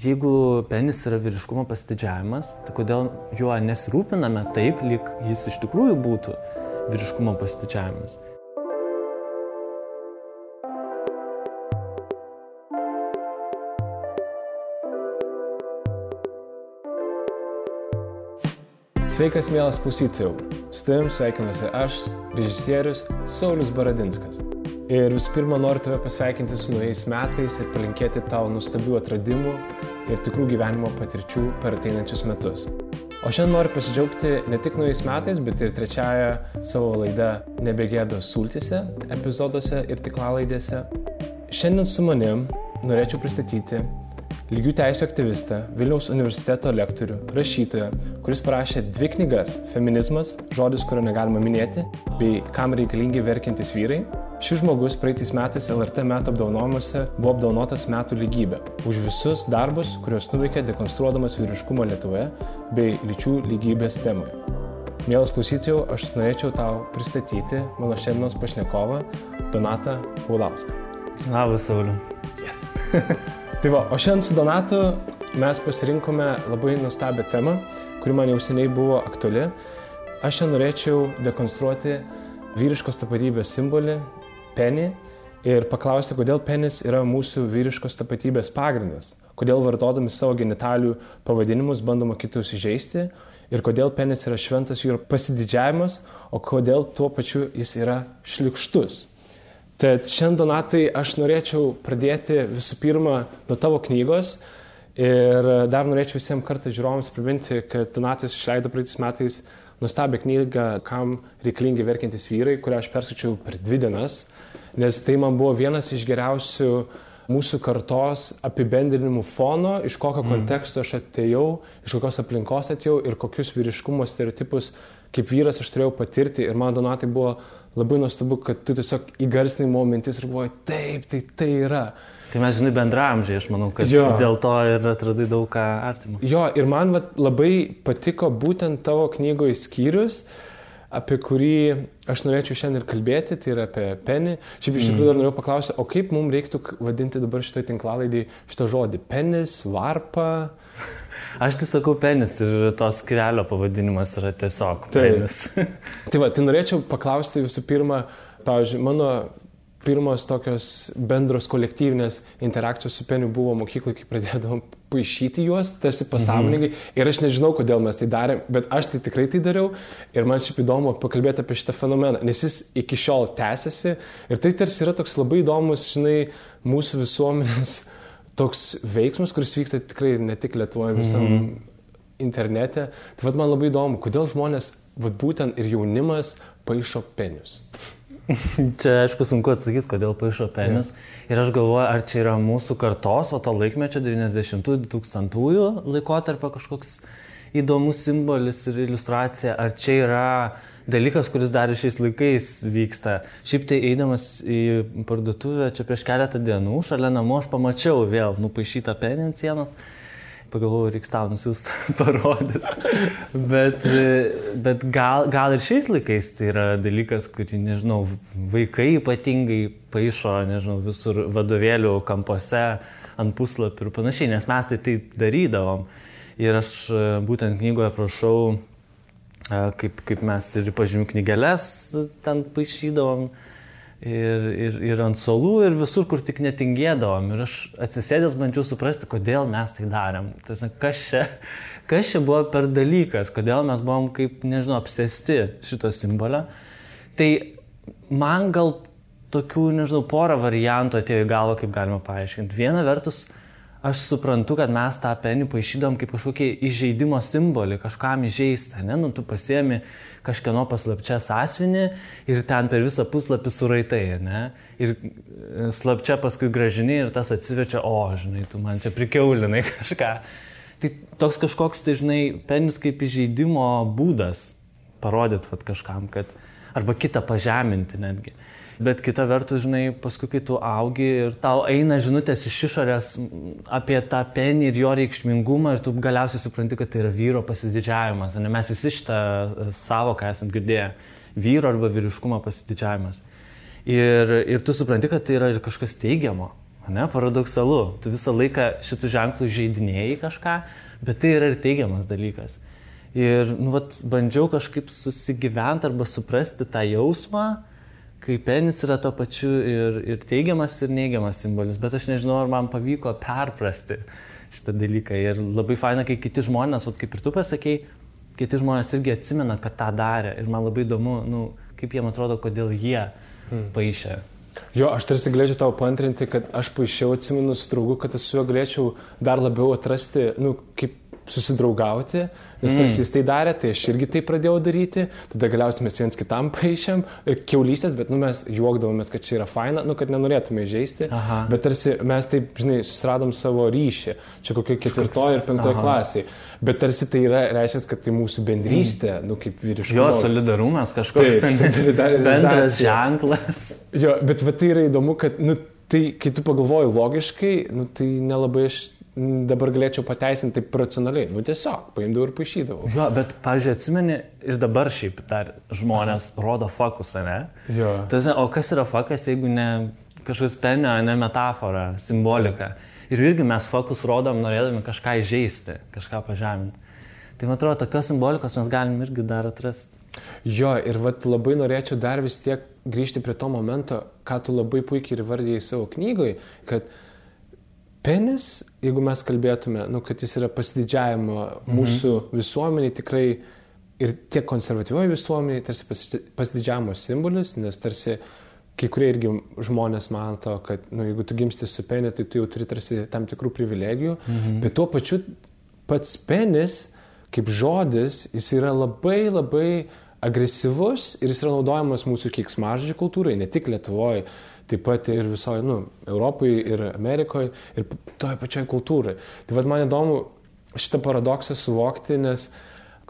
jeigu penis yra vyriškumo pasididžiavimas, tai kodėl juo nesirūpiname taip, lyg jis iš tikrųjų būtų vyriškumo pasididžiavimas? Sveikas, mielas klausytojau. Su tavim sveikinuosi aš, režisierius Saulius Baradinskas. Ir visų pirma, noriu tave pasveikinti su naujais metais ir palinkėti tau nuostabių atradimų ir tikrų gyvenimo patirčių per ateinančius metus. O šiandien noriu pasidžiaugti ne tik naujais metais, bet ir trečiąją savo laidą Nebegėdos sultyse, epizoduose ir tinklalaidėse. Šiandien su manim norėčiau pristatyti lygių teisių aktyvistą, Vilniaus universiteto lektorių, rašytoją, kuris parašė 2 knygas – Feminizmas, žodis, kurio negalima minėti, bei Kam reikalingi verkiantys vyrai. Šis žmogus praeitais metais LRT metų apdovanojimuose buvo apdovanotas metų lygybė už visus darbus, kuriuos nuveikė dekonstruodamas vyriškumo Lietuvoje bei lyčių lygybės temoje. Mielas klausytojau, aš norėčiau tau pristatyti mano šiandienos pašnekovą Donatą Paulauską. Labas, Sauliu. Yes. Tai va, o šiandien su Donatu mes pasirinkome labai nuostabią temą, kuri man jau seniai buvo aktuali. Aš šiandien norėčiau dekonstruoti vyriškos tapatybės simbolį, penį, ir paklausti, kodėl penis yra mūsų vyriškos tapatybės pagrindas, kodėl vartodami savo genitalių pavadinimus bandoma kitus įžeisti ir kodėl penis yra šventas jų pasididžiavimas, o kodėl tuo pačiu jis yra šlykštus. Tad šiandien, Donatai, aš norėčiau pradėti visų pirma nuo tavo knygos ir dar norėčiau visiems kartą žiūrovams priminti, kad Donatas išleido praeitais metais nuostabią knygą Kam reikalingi verkiantys vyrai, kurią aš perskaičiau per 2 dienas, nes tai man buvo vienas iš geriausių mūsų kartos apibendrinimų fono, iš kokio konteksto aš atėjau, iš kokios aplinkos atėjau ir kokius vyriškumo stereotipus kaip vyras aš turėjau patirti. Ir man, Donatai, buvo labai nuostabu, kad tu tiesiog įgarsinai mano mintis ir galvoji, taip, tai yra. Tai mes, žinai, bendraamžiai, aš manau, kad dėl to ir atradai daug ką artimo. Jo, ir man labai patiko būtent tavo knygoje skyrius, apie kurį aš norėčiau šiandien ir kalbėti, tai yra apie penį. Šiaip iš tikrųjų dar norėjau paklausti, o kaip mums reiktų vadinti dabar šitą tinklalaidį šitą žodį? Penis, varpa? Aš tai sakau penis ir tos skyrelio pavadinimas yra tiesiog penis. Tai norėčiau paklausti visų pirma, pavyzdžiui, mano pirmos tokios bendros kolektyvinės interakcijos su peniu buvo mokykloje, kai pradėdavom paišyti juos, tarsi pasąmoningai. Ir aš nežinau, kodėl mes tai darėm, bet aš tai tikrai tai dariau. Ir man šiaip įdomu pakalbėti apie šitą fenomeną, nes jis iki šiol tęsiasi. Ir tai tarsi yra toks labai įdomus, žinai, mūsų visuomenės toks veiksmas, kuris vyksta tikrai ne tik Lietuvoje, visam internete. Tai man labai įdomu, kodėl žmonės, būtent ir jaunimas, paišo penius. Čia, aišku, sunku atsakyti, kodėl paišo penis. Ir aš galvoju, ar čia yra mūsų kartos, o to laikmečio 90-2000 laikotarpio kažkoks įdomus simbolis ir iliustracija, ar čia yra dalykas, kuris dar šiais laikais vyksta. Šiaip tai eidamas į parduotuvę čia prieš keletą dienų, šalia namų aš pamačiau vėl nupaišytą penį ant sienos. Pagalvojau, reiks tau nusiųsti parodyti. Bet gal ir šiais laikais tai yra dalykas, kurį, nežinau, vaikai ypatingai paišo, nežinau, visur vadovėlių kampuose, ant puslapių ir panašiai, nes mes tai darydavom. Ir aš būtent knygoje prašau, kaip mes ir pažymių knygeles ten paišydavom, ir ant suolų, ir visur, kur tik netingėdavom. Ir aš atsisėdęs bandžiau suprasti, kodėl mes tai darėm. Tai, kas čia buvo per dalykas, kodėl mes buvom kaip, nežinau, apsėsti šito simbolio. Tai man gal tokių, nežinau, porą variantų atėjo į galvą, kaip galima paaiškinti. Viena vertus, aš suprantu, kad mes tą penį paišydom kaip kažkokį įžeidimo simbolį, kažkam įžeistą, ne? Tu pasiemi kažkieno paslapčia sąsiuvinį ir ten per visą puslapį suraitai, ne? Ir slapčia paskui gražini ir tas atsiverčia, žinai, tu man čia prikiaulinai kažką. Tai toks kažkoks, tai žinai, penis kaip įžeidimo būdas parodyti kažkam, kad arba kitą pažeminti netgi. Bet kita vertus, žinai, paskui, kai tu augi ir tau eina žinutės iš išorės apie tą penį ir jo reikšmingumą ir tu galiausiai supranti, kad tai yra vyro pasididžiavimas. Ne? Mes visi šitą savoką esam girdėję. Vyro arba vyriškumo pasididžiavimas. Ir tu supranti, kad tai yra ir kažkas teigiamo. Ne, paradoksalu. Tu visą laiką šitų ženklų žaidinėjai kažką, bet tai yra ir teigiamas dalykas. Ir bandžiau kažkaip susigyventi arba suprasti tą jausmą, kai penis yra to pačiu ir teigiamas, ir neigiamas simbolis. Bet aš nežinau, ar man pavyko perprasti šitą dalyką. Ir labai faina, kai kiti žmonės, kaip ir tu pasakei, kiti žmonės irgi atsimena, kad tą darė. Ir man labai įdomu, kaip jiem atrodo, kodėl jie paišė. Jo, aš tarsi galėčiau tau paantrinti, kad aš paišiau, atsimenu su draugu, kad aš su juo galėčiau dar labiau atrasti, kaip susidraugauti, nes tarsi jis tai darė, tai aš irgi tai pradėjau daryti, tada galiausiai mes viens kitam paišėm ir kiaulystės, bet mes juokdavomės, kad čia yra faina, kad nenorėtume įžeisti, bet tarsi mes taip, susiradom savo ryšį, čia kokioj 4 ir 5 klasiai, bet tarsi tai yra, reiškia, kad tai mūsų bendrystė, kaip vyriškumo. Jo, solidarumas kažkoks, bendras ženklas. Jo, bet tai yra įdomu, kad, tai, kai tu pagalvoji logiškai, tai nelabai aš dabar galėčiau pateisinti taip racionaliai. Tiesiog, paimdavau ir paišydavau. Jo, bet, pavyzdžiui, atsimeni, ir dabar šiaip dar žmonės rodo fokusą, ne? Jo. O kas yra fokus, jeigu ne kažkoks penio, ne metafora, simbolika. Ir irgi mes fokus rodom, norėdami kažką įžeisti, kažką pažeminti. Tai man atrodo, tokios simbolikos mes galim irgi dar atrasti. Jo, ir labai norėčiau dar vis tiek grįžti prie to momento, ką tu labai puikiai ir vardėjai savo knygoj, kad penis, jeigu mes kalbėtume, kad jis yra pasididžiavimo mūsų visuomeniai tikrai ir tiek konservatyvioji visuomeniai, tarsi pasididžiavimo simbolis, nes tarsi kai kurie irgi žmonės mato, kad jeigu tu gimsti su peniu, tai tu jau turi tarsi tam tikrų privilegijų, bet tuo pačiu pats penis, kaip žodis, jis yra labai labai agresyvus ir jis yra naudojamas mūsų keiksmažodžių kultūrai, ne tik Lietuvoje, taip pat ir visoje, Europoje ir Amerikoje ir toje pačioje kultūrai. Tai man įdomu šitą paradoksą suvokti, nes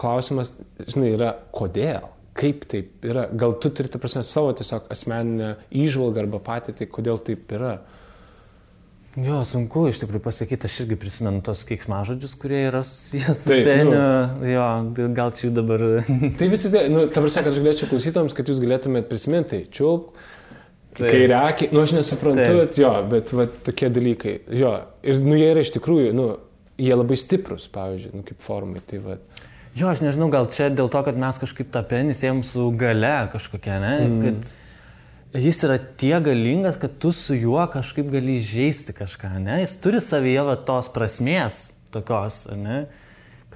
klausimas, yra kodėl, kaip taip yra. Gal tu turi, savo tiesiog asmeninę įžvalgą arba patirtį, kodėl taip yra. Jo, sunku iš tikrųjų pasakyti, aš irgi prisimenu tos keiksmažodžius, kurie yra susijęs su peniu. Jo, gal čia jų dabar... Tai visi, ta prasme, kad aš galėčiau klausytojams, kad jūs galėtumėt prisiminti, čiulp, kairiakį, aš nesuprantu, bet tokie dalykai. Jo, ir jie yra iš tikrųjų, jie labai stiprus, pavyzdžiui, kaip formai. Tai, jo, aš nežinau, gal čia dėl to, kad mes kažkaip tą penį siejam su gale kažkokia, ne? Kad jis yra tiek galingas, kad tu su juo kažkaip gali įžeisti kažką, ne? Jis turi savyje tos prasmės tokios, ne?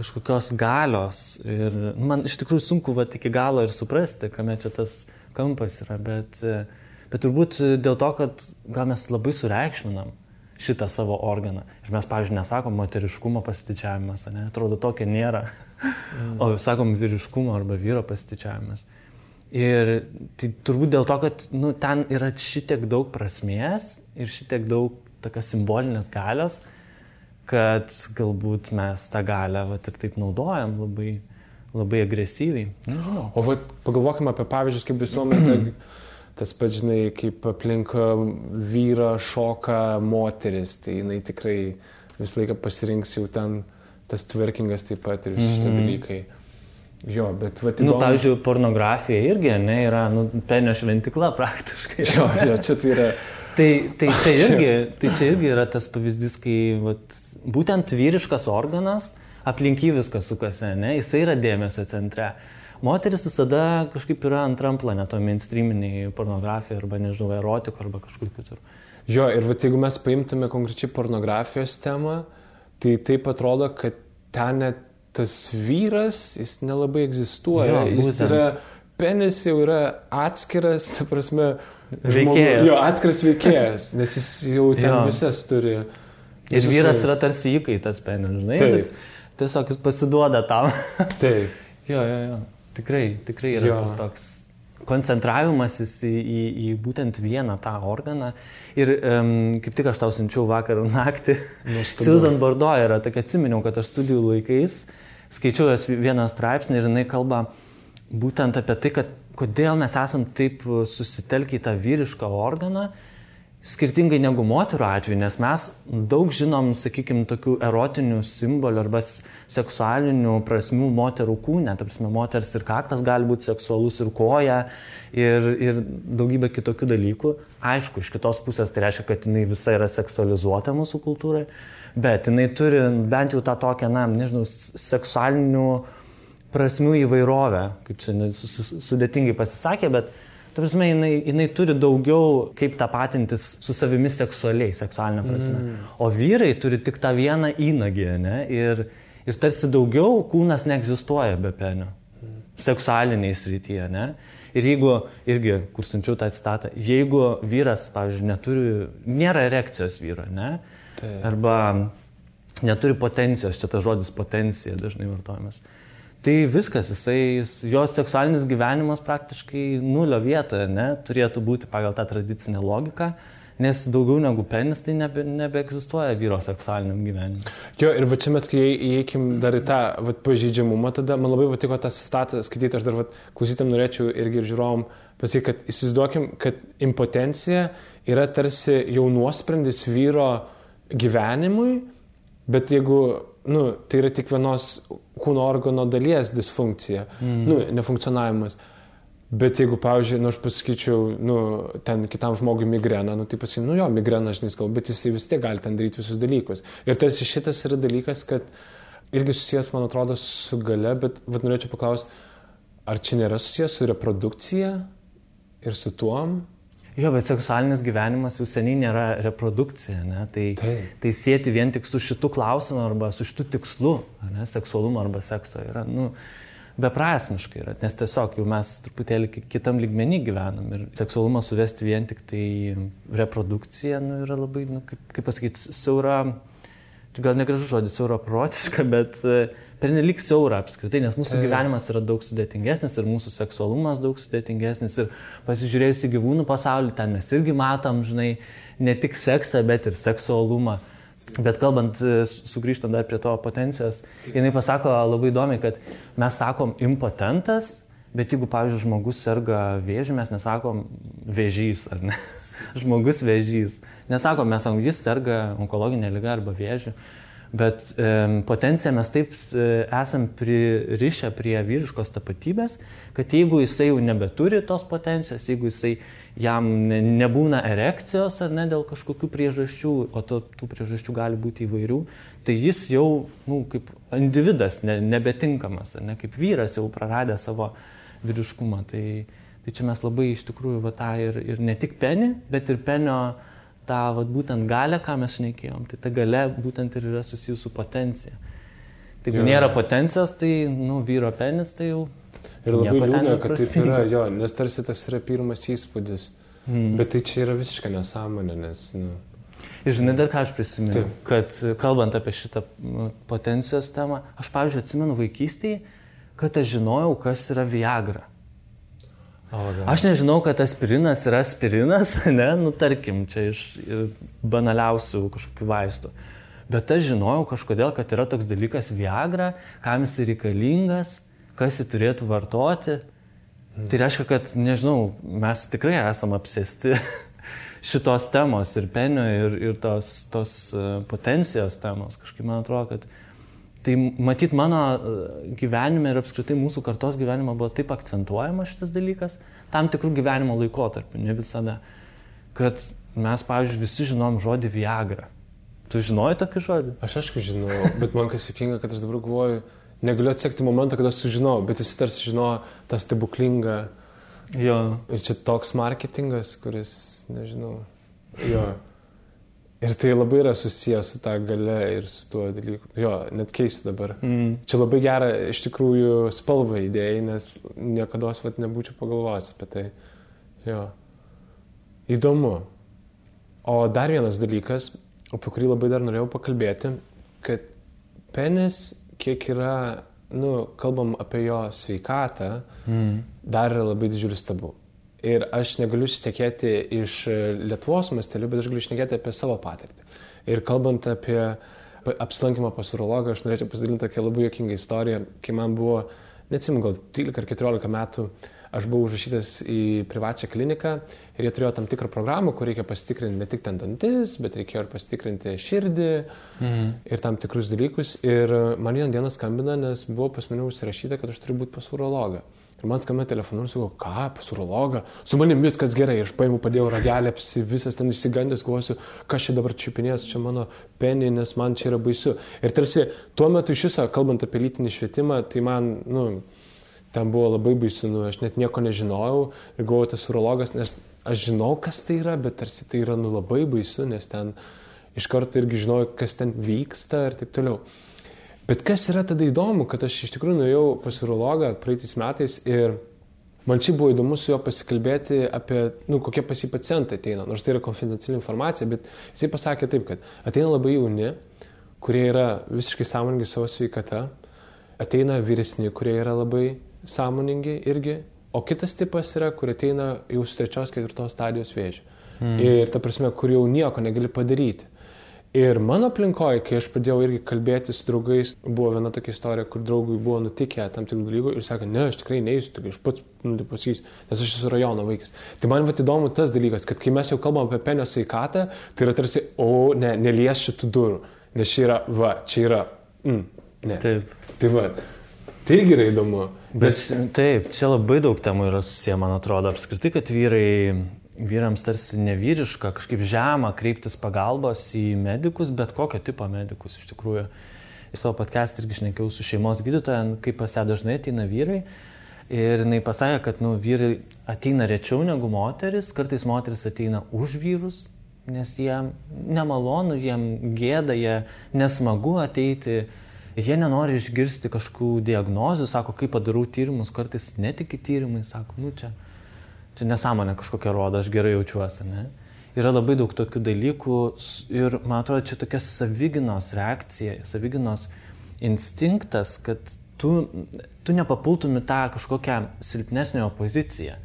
Kažkokios galios. Ir man iš tikrųjų sunku iki galo ir suprasti, kame čia tas kampas yra, bet turbūt dėl to, kad gal mes labai sureikšminam šitą savo organą. Ir mes, pavyzdžiui, nesakom moteriškumo pasididžiavimas, ne? Atrodo, tokio nėra. O sakom vyriškumo arba vyro pasididžiavimas. Ir tai turbūt dėl to, kad ten yra šitiek daug prasmės ir šitiek daug tokios simbolinės galios, kad galbūt mes tą galią ir taip naudojam labai, labai agresyviai. Nežinau. O pagalvokime apie pavyzdžius, kaip visuomenė, tas pats, kaip aplink vyrą šoka moteris, tai jinai tikrai visą laiką pasirinks jau ten tas twerkingas taip pat ir visi šitie dalykai. Jo, bet įdomu... Pavyzdžiui, pornografija irgi, yra, penio šventikla praktiškai. Jo, čia tai yra... Tai čia irgi yra tas pavyzdys, kai būtent vyriškas organas, aplink jį viskas sukasi, jisai yra dėmesio centre. Moteris visada kažkaip yra antram plane, to mainstreaminiai pornografija arba, nežinau, erotiko arba kažkur kitur. Jo, ir jeigu mes paimtume konkrečiai pornografijos temą, tai taip atrodo, kad ten net tas vyras, jis nelabai egzistuoja. Jo, jis yra, penis jau yra atskiras, ta prasme, veikėjas. Jo, atskiras veikėjas, nes jis jau ten visas turi. Ir vyras yra tarsi įkaitas penis, žinai? Taip. Tiesiog jis pasiduoda tam. Taip. Jo. Tikrai yra tas toks koncentravimasis į būtent vieną tą organą. Ir kaip tik aš tau siunčiau vakar naktį, Susan Bordeaux yra, tokia atsiminiau, kad aš studijų laikais skaičiau jos vieną straipsnį ir jinai kalba būtent apie tai, kad kodėl mes esam taip susitelkę į tą vyrišką organą, skirtingai negu moterų atveju, nes mes daug žinom, sakykime, tokių erotinių simbolių arba seksualinių prasmių moterų kūne. Ta prasme, moters ir kaktas gali būti seksualus, ir koja, ir daugybė kitokių dalykų. Aišku, iš kitos pusės tai reiškia, kad jinai visa yra seksualizuota mūsų kultūrai, bet jinai turi bent jau tą tokią, seksualinių prasmių įvairovę, kaip čia sudėtingai pasisakė, bet ta prasme, jinai turi daugiau kaip tapatintis su savimi seksualinė prasme. O vyrai turi tik tą vieną įnagį, ne? Ir tarsi daugiau kūnas neegzistuoja be penio. Seksualiniai srityje, ne? Ir jeigu, irgi, kur siunčiau tą citatą, jeigu vyras, pavyzdžiui, nėra erekcijos vyro, ne? Arba neturi potencijos, čia tas žodis potencija dažnai vartojamas. Tai viskas, jos seksualinis gyvenimas praktiškai nulio vietoje, ne, turėtų būti pagal tą tradicinę logiką, nes daugiau negu penis tai nebeegzistuoja vyro seksualiniam gyvenimui. Jo, ir va čia mes, kai įeikim dar į tą pažeidžiamumą, tada man labai patiko tą citatą skaityti, aš dar klausytam norėčiau irgi ir žiūrovom pasakyti, kad įsivaizduokim, kad impotencija yra tarsi jau nuosprendis vyro gyvenimui, bet jeigu tai yra tik vienos kūno organo dalies disfunkcija, nefunkcionavimas. Bet jeigu, pavyzdžiui, aš pasakyčiau, ten kitam žmogui migrena, tai pasakyčiau, jo, migrena, žinai, bet jis vis tiek gali ten daryti visus dalykus. Ir tarsi šitas yra dalykas, kad irgi susijęs, man atrodo, su gale, bet norėčiau paklausti, ar čia nėra susijęs su reprodukcija ir su tuom? Jo, bet seksualinis gyvenimas jau seniai nėra reprodukcija, ne? Tai sieti vien tik su šitu klausimu arba su šitu tikslu, ne? Seksualumo arba sekso yra, beprasmiškai yra, nes tiesiog jau mes truputėlį kitam lygmenį gyvenam ir seksualumą suvesti vien tik tai reprodukcija, yra labai, kaip pasakyti, siaura, gal negražus žodis, siaura protiška, bet pernelyg siaura apskritai, nes mūsų gyvenimas yra daug sudėtingesnis ir mūsų seksualumas daug sudėtingesnis ir pasižiūrėjus į gyvūnų pasaulį, ten mes irgi matom, žinai, ne tik seksą, bet ir seksualumą. Bet kalbant, sugrįžtant dar prie to potencijos, jinai pasako labai įdomiai, kad mes sakom impotentas, bet jeigu, pavyzdžiui, žmogus serga vėžiu, mes nesakom vėžys, ar ne? Žmogus vėžys. Nesakom, mes sakom, jis serga onkologinė liga arba vėžiu. Bet potenciją mes taip esam pririšę prie vyriškos tapatybės, kad jeigu jisai jau nebeturi tos potencijos, jeigu jam nebūna erekcijos ar ne dėl kažkokių priežasčių, o tų priežasčių gali būti įvairių, tai jis jau kaip individas nebetinkamas, ar ne, kaip vyras jau praradė savo vyriškumą. Tai čia mes labai iš tikrųjų tą ir ne tik penį, bet ir penio tą būtent galę, ką mes šnekėjom, tai ta galia būtent ir yra susijusi su potencija. Tai jeigu nėra potencijos, tai vyro penis, tai jau ir labai liūdna, kad taip yra, jo, nes tarsi tas yra pirmas įspūdis. Bet tai čia yra visiška nesąmonė, nes... Ir žinai, dar ką aš prisimenu, kad kalbant apie šitą potencijos temą, aš, pavyzdžiui, atsimenu vaikystėje, kad aš žinojau, kas yra Viagra. Aš nežinau, kad aspirinas yra aspirinas, ne, tarkim, čia iš banaliausių kažkokių vaistų. Bet aš žinojau kažkodėl, kad yra toks dalykas Viagra, kam jis reikalingas, kas jį turėtų vartoti. Tai reiškia, kad, nežinau, mes tikrai esam apsėsti šitos temos ir penio, ir tos potencijos temos. Kažkaip man atrodo, kad tai matyt mano gyvenime ir apskritai mūsų kartos gyvenime buvo taip akcentuojamas šitas dalykas, tam tikrų gyvenimo laikotarpių, ne visada, kad mes, pavyzdžiui, visi žinom žodį Viagra. Tu žinojai tokį žodį? Aš aišku žinau, bet man kas juokinga, kad aš dabar galvoju, negaliu atsekti momentą, kada aš sužinau, bet visi tarsi žinojo tą stebuklingą. Jo. Ir čia toks marketingas, kuris, nežinau, jo. Ir tai labai yra susijęs su tą gale ir su tuo dalyku. Jo, net keista dabar. Čia labai gera iš tikrųjų spalva idėjai, nes niekados nebūčiau pagalvojęs apie tai. Jo. Įdomu. O dar vienas dalykas, apie kurį labai dar norėjau pakalbėti, kad penis, kiek yra, kalbam apie jo sveikatą, dar yra labai didžiulis tabu. Ir aš negaliu šnekėti iš Lietuvos mastelių, bet aš galiu šnekėti apie savo patirtį. Ir kalbant apie apsilankymą pas urologą, aš norėčiau pasidalinti tokią labai juokingą istoriją, kai man buvo, neatsimenu, gal 13 ar 14 metų, aš buvau užrašytas į privačią kliniką ir jie turėjo tam tikrą programą, kur reikia pasitikrinti ne tik ten dantis, bet reikėjo ir pasitikrinti širdį ir tam tikrus dalykus. Ir man vieną dieną skambina, nes buvo pas mane užsirašyta, kad aš turiu būti pas urologą. Ir man skambina telefonu ir sakau, ką, pas urologą? Su manim viskas gerai. Ir aš paėmiau, padėjau ragelę, visas ten išsigandęs, galvosiu, kas čia dabar čiupinės, čia mano penį, nes man čia yra baisu. Ir tarsi tuo metu iš viso, kalbant apie lytinį švietimą, tai man, ten buvo labai baisu, aš net nieko nežinojau ir galvojau, tas urologas, nes aš žinau, kas tai yra, bet tarsi tai yra labai baisu, nes ten iš karto irgi žinojau, kas ten vyksta ir taip toliau. Bet kas yra tada įdomu, kad aš iš tikrųjų nuėjau pas urologą praeitais metais ir man čia buvo įdomu su juo pasikalbėti apie, kokie pas jį pacientai ateina, nors tai yra konfidenciali informacija, bet jisai pasakė taip, kad ateina labai jauni, kurie yra visiškai sąmoningi savo sveikata, ateina vyresni, kurie yra labai sąmoningi irgi, o kitas tipas yra, kur ateina jau su 3-4 stadijos vėžiu. Ir ta prasme, kur jau nieko negali padaryti. Ir mano aplinkoje, kai aš pradėjau irgi kalbėti su draugais, buvo viena tokia istorija, kur draugui buvo nutikę tam tikrų dalykų ir sakė, ne, aš tikrai neįsiu, tik aš pats pasakysiu, nes aš esu rajono vaikas. Tai man įdomu tas dalykas, kad kai mes jau kalbam apie penio sveikatą, tai yra tarsi, nelies šitų durų, nes čia yra, ne. Taip. Tai tai irgi yra įdomu. Taip, čia labai daug temų yra susiję, man atrodo, apskritai, kad vyrams tarsi nevyriška, kažkaip žema kreiptis pagalbos į medikus, bet kokio tipo medikus iš tikrųjų. Į savo podcast'ą irgi šnekėjau su šeimos gydytoja, kaip pas ją dažnai ateina vyrai. Ir jinai pasakė, kad vyrai ateina rečiau negu moteris, kartais moteris ateina už vyrus, nes jiem nemalonu, jiem gėda, jie nesmagu ateiti. Jie nenori išgirsti kažkokių diagnozių, sako, kai padarau tyrimus, kartais netiki tyrimai, sako, čia nesąmonė kažkokia rodo, aš gerai jaučiuosi, ne? Yra labai daug tokių dalykų ir, man atrodo, čia tokia savigynos reakcija, savigynos instinktas, kad tu nepapultum į tą kažkokią silpnesnio poziciją.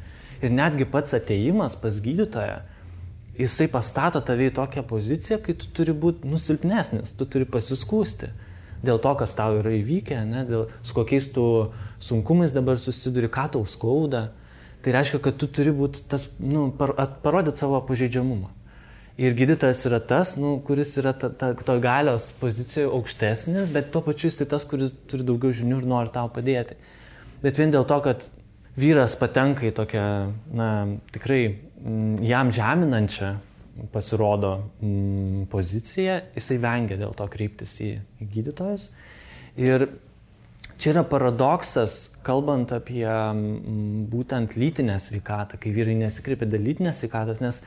Ir netgi pats atėjimas pas gydytoją, jisai pastato tave į tokią poziciją, kai tu turi būti silpnesnis, tu turi pasiskųsti dėl to, kas tau yra įvykę, ne? Dėl su kokiais tu sunkumais dabar susiduri, ką tau skauda. Tai reiškia, kad tu turi būti tas, parodyti savo pažeidžiamumą. Ir gydytojas yra tas, kuris yra to galios pozicijoje aukštesnis, bet tuo pačiu jis tas, kuris turi daugiau žinių ir nori tau padėti. Bet vien dėl to, kad vyras patenka į tokią, tikrai jam žeminančią pasirodo poziciją, jisai vengia dėl to kreiptis į gydytojus. Ir čia yra paradoksas, kalbant apie būtent lytinę sveikatą, kai vyrai nesikreipia dėl lytinės sveikatos, nes,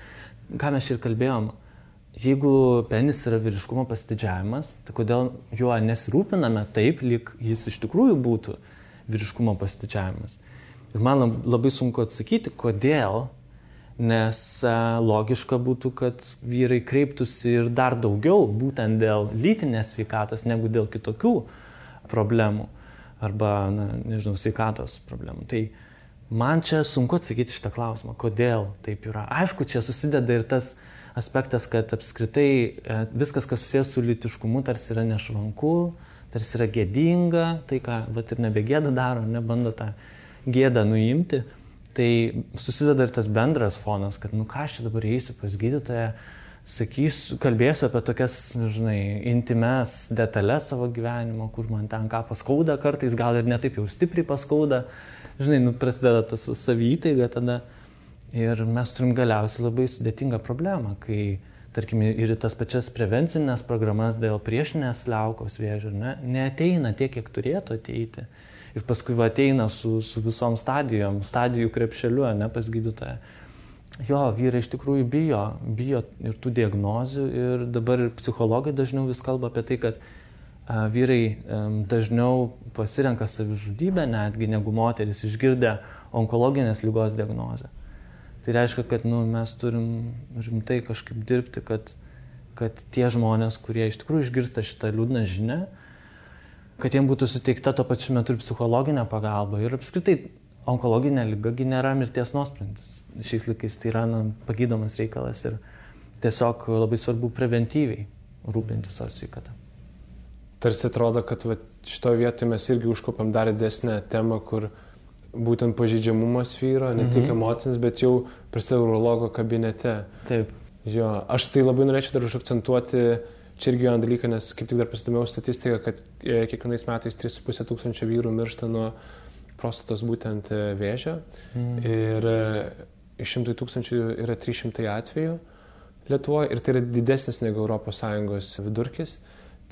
ką mes ir kalbėjom, jeigu penis yra vyriškumo pasididžiavimas, tai kodėl juo nesirūpiname taip, lyg jis iš tikrųjų būtų vyriškumo pasididžiavimas. Ir man labai sunku atsakyti, kodėl, nes logiška būtų, kad vyrai kreiptųsi ir dar daugiau būtent dėl lytinės sveikatos, negu dėl kitokių problemų. Arba, sveikatos problemų. Tai man čia sunku atsakyti šitą klausimą, kodėl taip yra. Aišku, čia susideda ir tas aspektas, kad apskritai viskas, kas susijęs su lytiškumu, tarsi yra nešvanku, tarsi yra gėdinga, tai ką ir nebegėda daro, nebando tą gėdą nuimti. Tai susideda ir tas bendras fonas, kad ką aš čia dabar eisiu pas gydytoją, kalbėsiu apie tokias, intimes detalės savo gyvenimo, kur man ten ką paskauda kartais, gal ir netaip jau stipriai paskauda, prasideda tas savytaiga tada. Ir mes turim galiausiai labai sudėtingą problemą, kai, tarkim, ir tas pačias prevencinės programas dėl priešinės liaukos vėžio, neateina tiek, kiek turėtų ateiti. Ir paskui ateina su visom stadijų krepšeliu, pas gydytoją. Jo, vyrai iš tikrųjų bijo ir tų diagnozių ir dabar ir psichologai dažniau vis kalba apie tai, kad vyrai dažniau pasirenka savižudybę netgi negu moteris išgirdę onkologinės ligos diagnozę. Tai reiškia, kad mes turim rimtai kažkaip dirbti, kad tie žmonės, kurie iš tikrųjų išgirsta šitą liūdną žinią, kad jiems būtų suteikta tuo pačiu metu ir psichologinė pagalba. Ir apskritai onkologinė liga nėra mirties nuosprendis. Šiais laikais tai yra pagydomas reikalas ir tiesiog labai svarbu preventyviai rūpintis savo sveikatą. Tarsi atrodo, kad šitoje vietoje mes irgi užkopėm dar didesnę temą, kur būtent pažeidžiamumas vyro, ne tik emocinis, bet jau prasideda urologo kabinete. Taip. Jo, aš tai labai norėčiau dar užakcentuoti čia irgi vieną dalyką, nes kaip tik dar pasidomėjau statistiką, kad kiekvienais metais 3,5 tūkstančio vyrų miršta nuo prostatos būtent vėžio ir iš 100 tūkstančių yra 300 atvejų Lietuvoje ir tai yra didesnis negu ES vidurkis.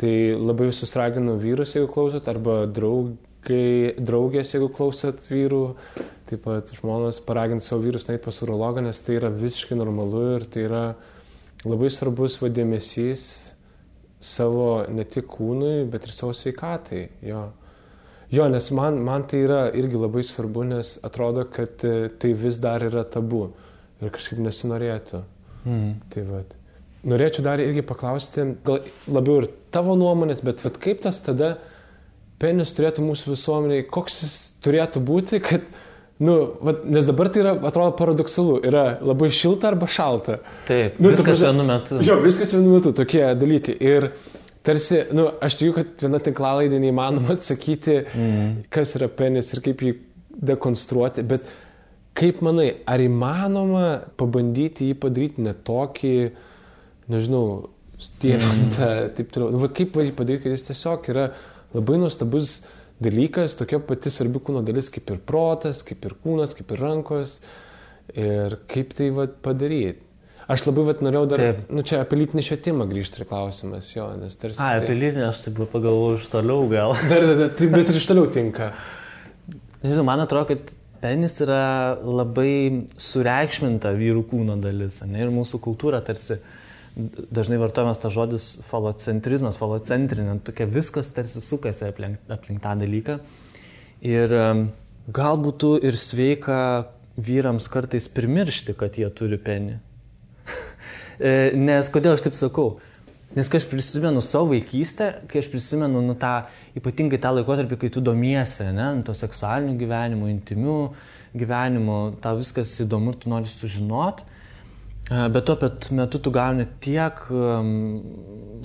Tai labai visus raginu vyrus, jeigu klausot, arba draugės, jeigu klausot vyrų, taip pat žmonos paraginti savo vyrus nueiti pas urologą, nes tai yra visiškai normalu ir tai yra labai svarbus dėmesys savo ne tik kūnui, bet ir savo sveikatai. Jo, nes man tai yra irgi labai svarbu, nes atrodo, kad tai vis dar yra tabu ir kažkaip nesinorėtų. Tai vat. Norėčiau dar irgi paklausti, gal labiau ir tavo nuomonės, bet vat, kaip tas tada penis turėtų mūsų visuomeniai, koks jis turėtų būti, kad, nes dabar tai yra, atrodo, paradoksalu, yra labai šilta arba šalta. Taip, viskas vienu metu. Jo, viskas vienu metu, tokie dalykai. Ir tarsi, aš tikiu, kad viena tinklalaidė neįmanoma atsakyti, kas yra penis ir kaip jį dekonstruoti, bet kaip manai, ar įmanoma pabandyti jį padaryti ne tokį, nežinau, stiepintą, taip toliau. Kaip jį padaryti, kad jis tiesiog yra labai nuostabus dalykas, tokia pati svarbi kūno dalis kaip ir protas, kaip ir kūnas, kaip ir rankos. Ir kaip tai padaryti. Aš labai norėjau dar, čia apie lytinį švietimą grįžti ir klausimas, jo, nes tarsi... Apie lytinį aš taip pagalvoju iš toliau gal. Bet ir iš toliau tinka. Nežinau, man atrodo, kad penis yra labai sureikšminta vyrų kūno dalis, ne? Ir mūsų kultūra tarsi dažnai vartojamas tas žodis falocentrizmas, falocentrinė, tokia viskas tarsi sukasi aplink tą dalyką. Ir gal būtų ir sveika vyrams kartais primiršti, kad jie turi penį. Nes kodėl aš taip sakau? Nes kai aš prisimenu savo vaikystę, kai aš prisimenu ypatingai tą laikotarpį, kai tu domiesi, to seksualiniu gyvenimu, intimiu gyvenimu, tau viskas įdomu ir tu nori sužinoti, bet tuo pat metu tu gauni tiek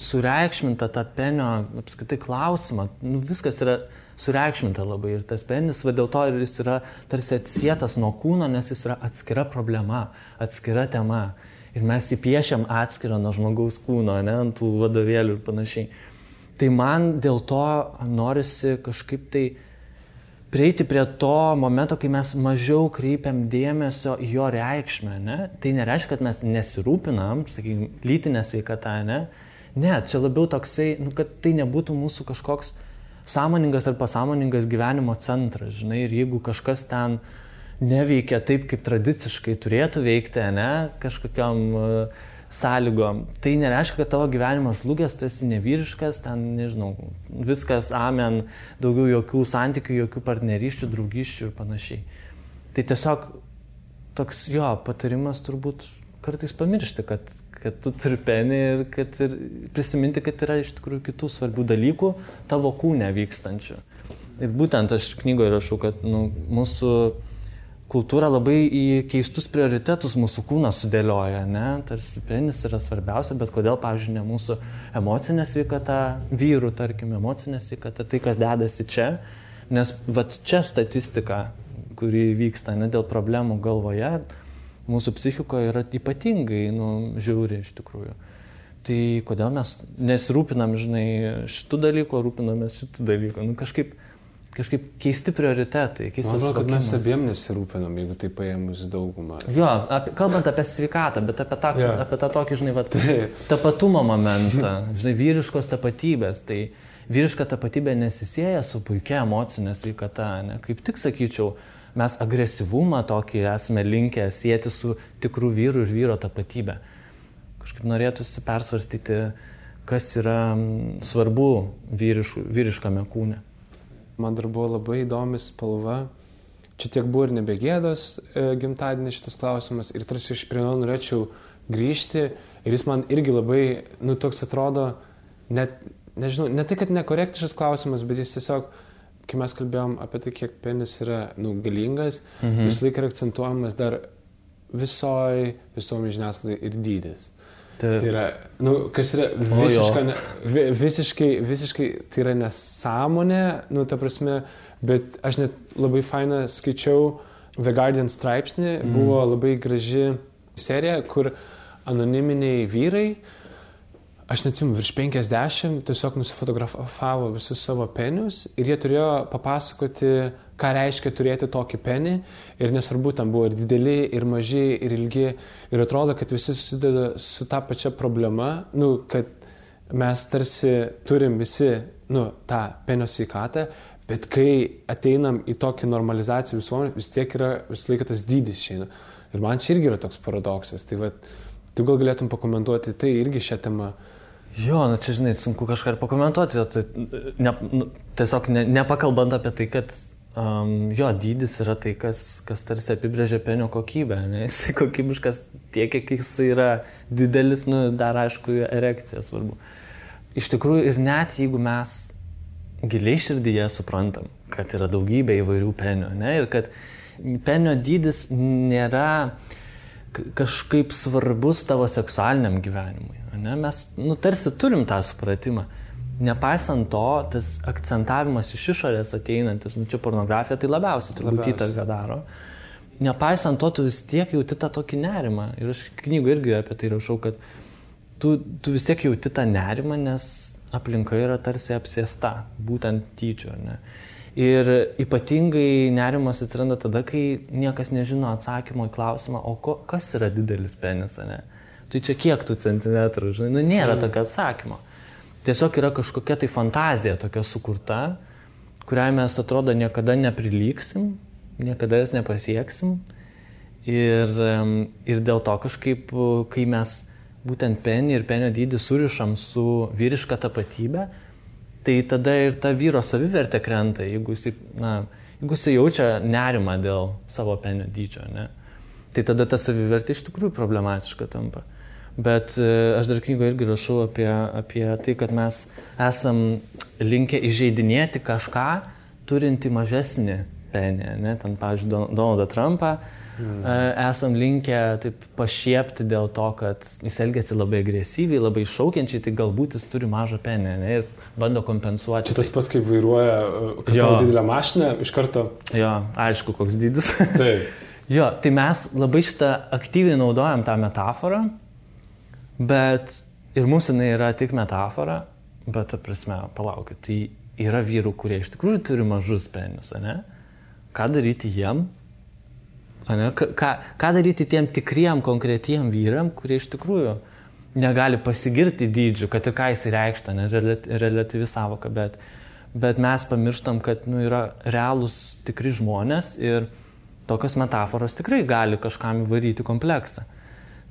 sureikšmintą tą penio apskritai klausimą, viskas yra sureikšminta labai ir tas penis, dėl to ir jis yra tarsi atsietas nuo kūno, nes jis yra atskira problema, atskira tema. Ir mes įpiešiam atskirą nuo žmogaus kūno, ant tų vadovėlių ir panašiai. Tai man dėl to norisi kažkaip tai prieiti prie to momento, kai mes mažiau kreipiam dėmesio į jo reikšmę. Tai nereiškia, kad mes nesirūpinam, sakykime, lytinę sveikatą, ne, čia labiau toksai, kad tai nebūtų mūsų kažkoks sąmoningas ar pasąmoningas gyvenimo centras, žinai, ir jeigu kažkas ten neveikia taip, kaip tradiciškai turėtų veikti, kažkokiam sąlygom. Tai nereiškia, kad tavo gyvenimas žlugęs, tu esi nevyriškas, ten, nežinau, viskas, amen, daugiau jokių santykių, jokių partnerysčių, draugyščių ir panašiai. Tai tiesiog toks patarimas turbūt kartais pamiršti, kad tu turi penį ir prisiminti, kad yra iš tikrųjų kitų svarbių dalykų tavo kūne vykstančių. Ir būtent aš knygoje rašau, kad mūsų kultūra labai į keistus prioritetus mūsų kūnas sudėlioja, tarsi penis yra svarbiausia, bet kodėl, pavyzdžiui, ne mūsų emocinė sveikata, vyrų, tarkim, emocinė sveikata, tai kas dedasi čia, nes čia statistika, kuri vyksta dėl problemų galvoje, mūsų psichikoje yra ypatingai žiauri iš tikrųjų. Tai kodėl mes nesirūpinam, žinai, šitų dalykų, rūpinamės šitų dalykų, kažkaip keisti prioritetai, keistas suvokimas. Man atrodo, kad mes abiem nesirūpinam, jeigu tai paėmus daugumą. Jo, kalbant apie sveikatą, bet apie tą tokį, žinai, tapatumo momentą, žinai, vyriškos tapatybės. Tai vyriška tapatybė nesisėja su puikia emocinė sveikata, kaip tik sakyčiau, mes agresyvumą tokį esame linkę sieti su tikrų vyrų ir vyro tapatybė. Kažkaip norėtųsi persvarstyti, kas yra svarbu vyriškame kūne. Man dar buvo labai įdomi spalva. Čia tiek buvo ir nebegėdos gimtadienį šitas klausimas. Ir tarsi iš prie norėčiau grįžti. Ir jis man irgi labai, toks atrodo, nežinau, ne tai, kad nekorektiškas klausimas, bet jis tiesiog, kai mes kalbėjom apie tai, kiek penis yra galingas, visą laiką yra akcentuojamas dar visuomenės žiniasklaidai ir dydis. Tai yra, kas yra visiškai, tai yra nesąmonė, ta prasme, bet aš net labai fainą skaičiau The Guardian straipsnį, buvo labai graži serija, kur anoniminiai vyrai, aš neatsimu, virš 50 tiesiog nusifotografavo visus savo penius ir jie turėjo papasakoti, ką reiškia turėti tokį penį ir nesvarbu, tam buvo ir dideli, ir maži, ir ilgi ir atrodo, kad visi susideda su ta pačia problema, kad mes tarsi turim visi, tą penio sveikatą, bet kai ateinam į tokį normalizaciją visuomenę, vis tiek yra vis laiką tas dydis išeina. Ir man čia irgi yra toks paradoksas. Tai tu gal galėtum pakomentuoti tai irgi šią temą. Jo, čia žinai, sunku kažką ir pakomentuoti. Tiesiog nepakalbant apie tai, kad jo dydis yra tai, kas tarsi apibrėžia penio kokybę. Ne? Jisai kokybiškas tiek, kiek jisai yra didelis, dar aišku, erekcija svarbu. Iš tikrųjų, ir net jeigu mes giliai širdyje suprantam, kad yra daugybė įvairių penio, ne? Ir kad penio dydis nėra kažkaip svarbus tavo seksualiniam gyvenimui. Ne? Mes tarsi turim tą supratimą. Nepaisant to, tas akcentavimas iš išorės ateinantis, čia pornografija tai labiausiai turbūt įtaką daro. Nepaisant to, tu vis tiek jauti tą tokį nerimą. Ir aš knygų irgi apie tai rašau, kad tu vis tiek jauti tą nerimą, nes aplinka yra tarsi apsėsta, būtent tyčio. Ne? Ir ypatingai nerimas atsiranda tada, kai niekas nežino atsakymo į klausimą, kas yra didelis penis, ne? Tai čia kiek tų centimetrų, žinai, nėra tokio atsakymo. Tiesiog yra kažkokia tai fantazija tokia sukurta, kuriai mes atrodo niekada neprilygsim, niekada jas nepasieksim. Ir dėl to kažkaip, kai mes būtent penį ir penio dydį surišam su vyriška tapatybė, tai tada ir ta vyro savivertė krenta, jeigu jisai jaučia nerimą dėl savo penio dydžio, ne? Tai tada ta savivertė iš tikrųjų problematiška tampa. Bet aš dar knygoje irgi rašau apie tai, kad mes esam linkę įžeidinėti kažką, turinti mažesnį penį, ne? Ten, pavyzdžiui, Donaldą Trumpą esam linkę taip pašiepti dėl to, kad jis elgiasi labai agresyviai, labai šaukiančiai, tai galbūt jis turi mažą penį, ne? Ir bando kompensuoti. Čia tas pats, kaip vairuoja kažkokią didelę mašiną, iš karto. Jo, aišku, koks dydis. Taip. Jo, tai mes labai šitą aktyviai naudojam tą metaforą, bet ir mums jinai yra tik metafora, bet, ta prasme, palaukit, tai yra vyrų, kurie iš tikrųjų turi mažus penius, ne? Ką daryti jiem? Ne? Ką daryti tiem tikriem, konkretiem vyram, kurie iš tikrųjų negali pasigirti dydžiu, kad ir ką jis reikšta, ne, relatyvi savoka, bet mes pamirštam, kad yra realūs tikri žmonės ir tokios metaforos tikrai gali kažkam įvaryti kompleksą.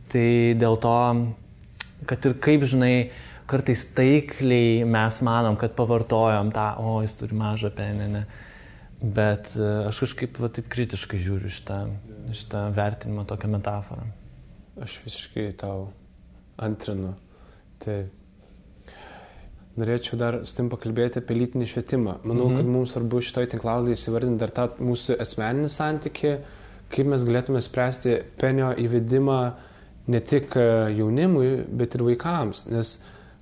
Tai dėl to, kad ir kaip, žinai, kartais taikliai mes manom, kad pavartojom tą, jis turi mažą penį, ne. Bet aš kažkaip taip kritiškai žiūriu šitą vertinimą, tokią metaforą. Aš visiškai tau antrinu. Tai norėčiau dar su tim pakalbėti apie lytinį švietimą. Manau, kad mums svarbu šitoj tinklalaidėje įsivardinti dar tą mūsų asmeninį santykį, kaip mes galėtume spręsti penio įvedimą ne tik jaunimui, bet ir vaikams. Nes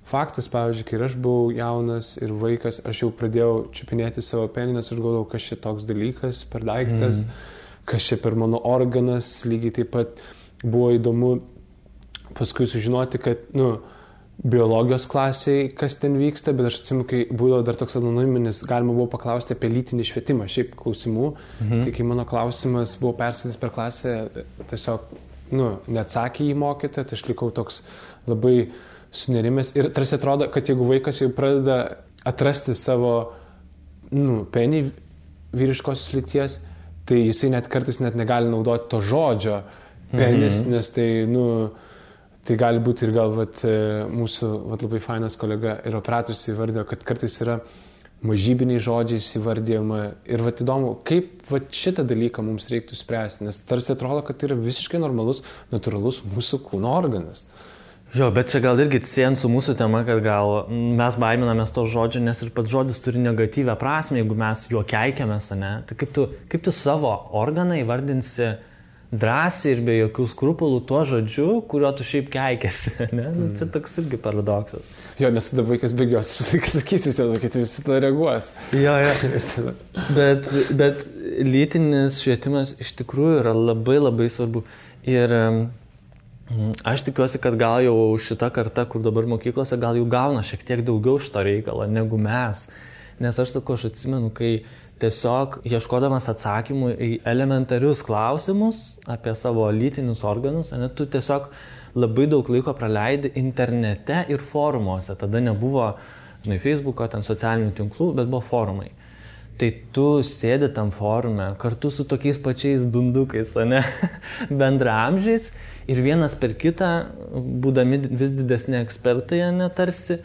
faktas, pavyzdžiui, kai aš buvau jaunas ir vaikas, aš jau pradėjau čiupinėti savo penį, nes aš galvojau, kas čia toks dalykas per daiktas, kas čia per mano organas, lygiai taip pat buvo įdomu paskui sužinoti, kad, biologijos klasiai, kas ten vyksta, bet aš atsimenu, kai būdavo dar toks anoniminis, galima buvo paklausti apie lytinį švietimą, šiaip klausimų, tai kai mano klausimas buvo perskaitytas per klasę, tiesiog, neatsakė į mokytoją, tai aš likau toks labai sunerimęs ir tarsi atrodo, kad jeigu vaikas jau pradeda atrasti savo, penį vyriškosios lyties, tai jisai net kartais net negali naudoti to žodžio penis, nes tai, tai gali būti ir gal mūsų labai fainas kolega ir operatorius įvardėjo, kad kartais yra mažybiniai žodžiais įvardėjama ir įdomu, kaip šitą dalyką mums reiktų spręsti, nes tarsi atrodo, kad tai yra visiškai normalus, natūralus mūsų kūno organas. Jo, bet čia gal irgi siejant su mūsų tema, kad gal mes baiminamės to žodžio, nes ir pats žodis turi negatyvę prasmę, jeigu mes juo keikiamės, ne? Tai kaip tu savo organą įvardinsi drąsiai ir be jokių skrupulų tuo žodžiu, kurio tu šiaip keikėsi, ne? Nu, čia toks irgi paradoksas. Jo, nes tada vaikas bėgios, sakysi, kad visi tada reaguos. Jo. Bet lytinis švietimas iš tikrųjų yra labai labai svarbu. Ir aš tikiuosi, kad gal jau šita karta, kur dabar mokyklose, gal jau gauna šiek tiek daugiau šito reikalo negu mes. Nes aš atsimenu, kai tiesiog ieškodamas atsakymų į elementarius klausimus apie savo lytinius organus, ne, tu tiesiog labai daug laiko praleidi internete ir forumuose. Tada nebuvo, Facebooko, ten socialinių tinklų, bet buvo forumai. Tai tu sėdi tam forume kartu su tokiais pačiais dundukais, ne, bendraamžiais ir vienas per kitą, būdami vis didesni ekspertai, ne, tarsi,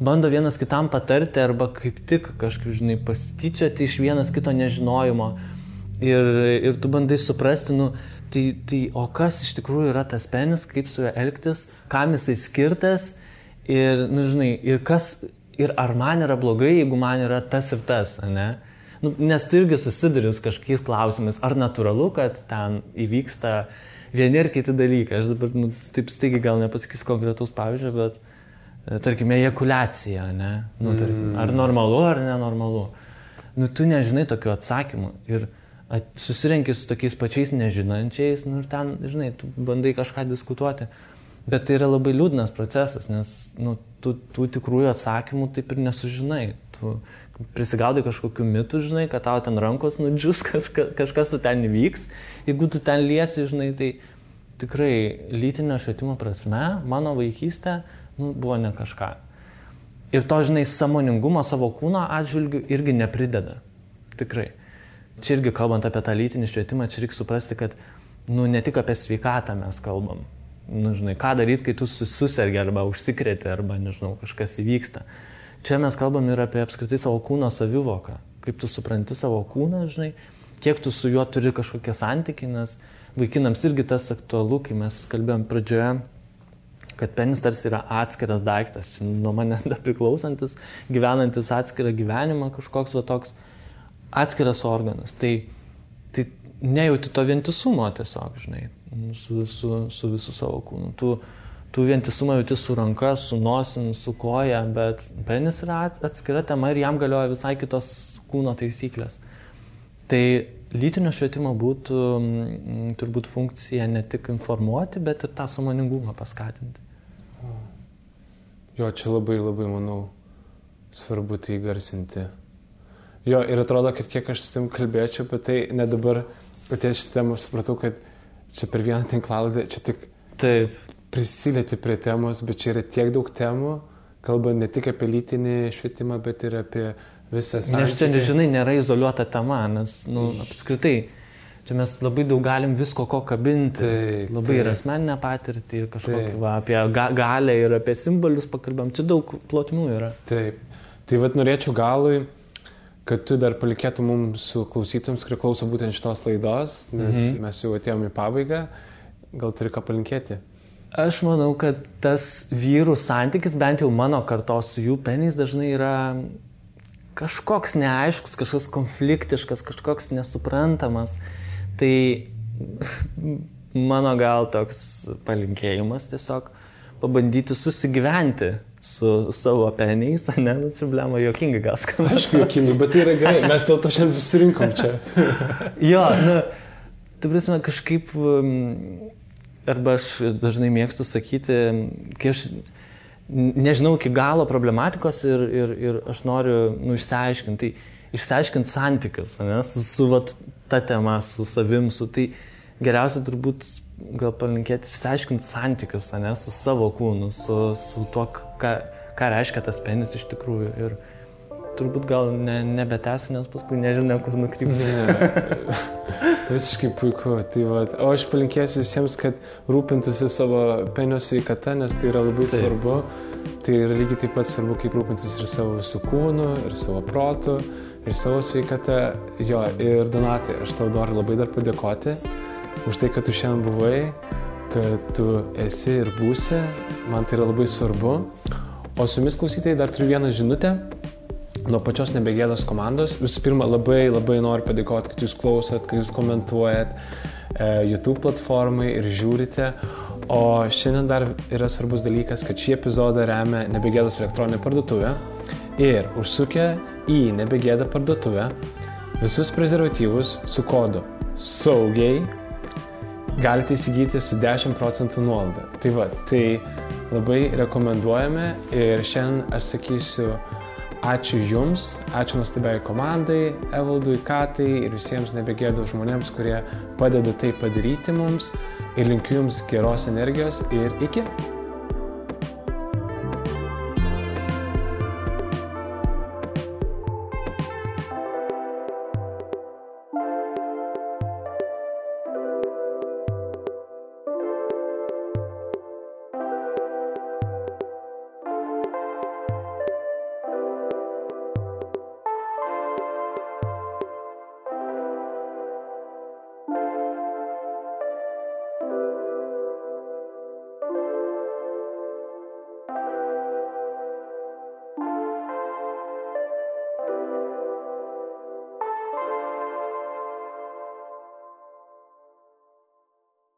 bando vienas kitam patarti arba kaip tik kažkaip, pasityčioti iš vienas kito nežinojimo ir tu bandai suprasti, tai o kas iš tikrųjų yra tas penis, kaip su juo elgtis, kam jisai skirtas ir, ir ar man yra blogai, jeigu man yra tas ir tas, ne? Nes tu irgi susiduri su kažkokiais klausimais, ar natūralu, kad ten įvyksta vieni ir kiti dalykai. Aš dabar taip staigiai gal nepasakysiu konkretaus pavyzdžio, bet tarkime, ejakuliacija, ne? Tarkim, ar normalu, ar nenormalu. Tu nežinai tokių atsakymų ir susirenki su tokiais pačiais nežinančiais, ir ten, tu bandai kažką diskutuoti. Bet tai yra labai liūdnas procesas, nes tu tikrųjų atsakymų taip ir nesužinai. Tu prisigaudai kažkokių mitų, kad tau ten rankos nudžius, kažkas tu ten įvyks. Jeigu tu ten liesi, tai tikrai lytinio švietimo prasme, mano vaikystė buvo ne kažką. Ir to, sąmoningumo savo kūno atžvilgių irgi neprideda. Tikrai. Čia irgi kalbant apie tą lytinį švietimą, čia reikia suprasti, kad ne tik apie sveikatą mes kalbam. Ką daryti, kai tu susergi arba užsikrėti, arba, kažkas įvyksta. Čia mes kalbam ir apie apskritai savo kūno savivoką. Kaip tu supranti savo kūną, kiek tu su juo turi kažkokie santykiai, nes vaikinams irgi tas aktualu, kai mes kalbėjom pradžioje, kad penis tarsi yra atskiras daiktas, nuo manęs nepriklausantis, gyvenantis atskirą gyvenimą, kažkoks toks atskiras organas. Tai nejauti to vientisumo tiesiog, su visu savo kūnu. Tu vientisumą jauti su ranka, su nosim, su koja, bet penis yra atskira tema ir jam galioja visai kitos kūno taisyklės. Tai lytinio švietimo būtų turbūt funkcija ne tik informuoti, bet ir tą sąmoningumą paskatinti. Jo, čia labai, labai, manau, svarbu tai garsinti. Jo, ir atrodo, kad kiek aš su tim kalbėčiau, bet tai ne dabar, paties šitą temą supratau, kad čia per vieną tinklalaidę, čia tik prisilieti prie temos, bet čia yra tiek daug temų, kalbant ne tik apie lytinį švietimą, bet ir apie visą santykį. Nes čia, nėra izoliuota tema, nes, apskritai, čia mes labai daug galim visko ko kabinti, ir asmeninę patirtį, ir kažkokį, apie galią ir apie simbolius pakalbam, čia daug plotmių yra. Taip, tai norėčiau galui, kad tu dar palikėtum mums su klausytams, kurie klauso būtent šitos laidos, nes mes jau atėjom į pabaigą, gal turi ką palinkėti? Aš manau, kad tas vyrų santykis, bent jau mano kartos su jų peniais, dažnai yra kažkoks neaiškus, kažkoks konfliktiškas, kažkoks nesuprantamas. Tai mano gal toks palinkėjimas tiesiog pabandyti susigyventi su savo peniais, ne, čia blema juokingai gal skamba. Aišku, juokingai, bet tai yra gerai, mes dėl to šiandien susirinkom čia. Jo, tai prasme kažkaip, arba aš dažnai mėgstu sakyti, kai aš nežinau iki galo problematikos ir aš noriu išsiaiškinti, santykius, ne, su ta tema, su savim, tai geriausia turbūt gal palinkėti išsiaiškinti santykius, ne, su savo kūnu, su tuo, ką reiškia tas penis iš tikrųjų. Ir turbūt gal nebetęsiu, nes paskui nežinau, kur nukrypsiu. Visiškai puiku. O aš palinkėsiu visiems, kad rūpintųsi savo penio sveikata, nes tai yra labai svarbu. Tai yra lygiai taip pat svarbu, kaip rūpintis ir savo visų kūnu, ir savo protu, ir savo sveikata. Jo, ir Donatai, aš tau noriu labai dar padėkoti už tai, kad tu šiandien buvai, kad tu esi ir būsi. Man tai yra labai svarbu. O su jumis klausytojai dar turiu vieną žinutę nuo pačios Nebegėdos komandos. Visų pirma, labai noriu padėkoti, kad jūs klausot, kad jūs komentuojat. YouTube platformai ir žiūrite. O šiandien dar yra svarbus dalykas, kad šį epizodą remia Nebegėdos elektroninė parduotuvė. Ir užsukę į Nebegėdą parduotuvę visus prezervatyvus su kodu SAUGIAI galite įsigyti su 10% nuolaida. Tai va, tai labai rekomenduojame ir šiandien aš sakysiu ačiū Jums, ačiū nuostabiai komandai, Evaldui, Katai ir visiems Nebegėdos žmonėms, kurie padeda tai padaryti mums ir linkiu Jums geros energijos ir iki.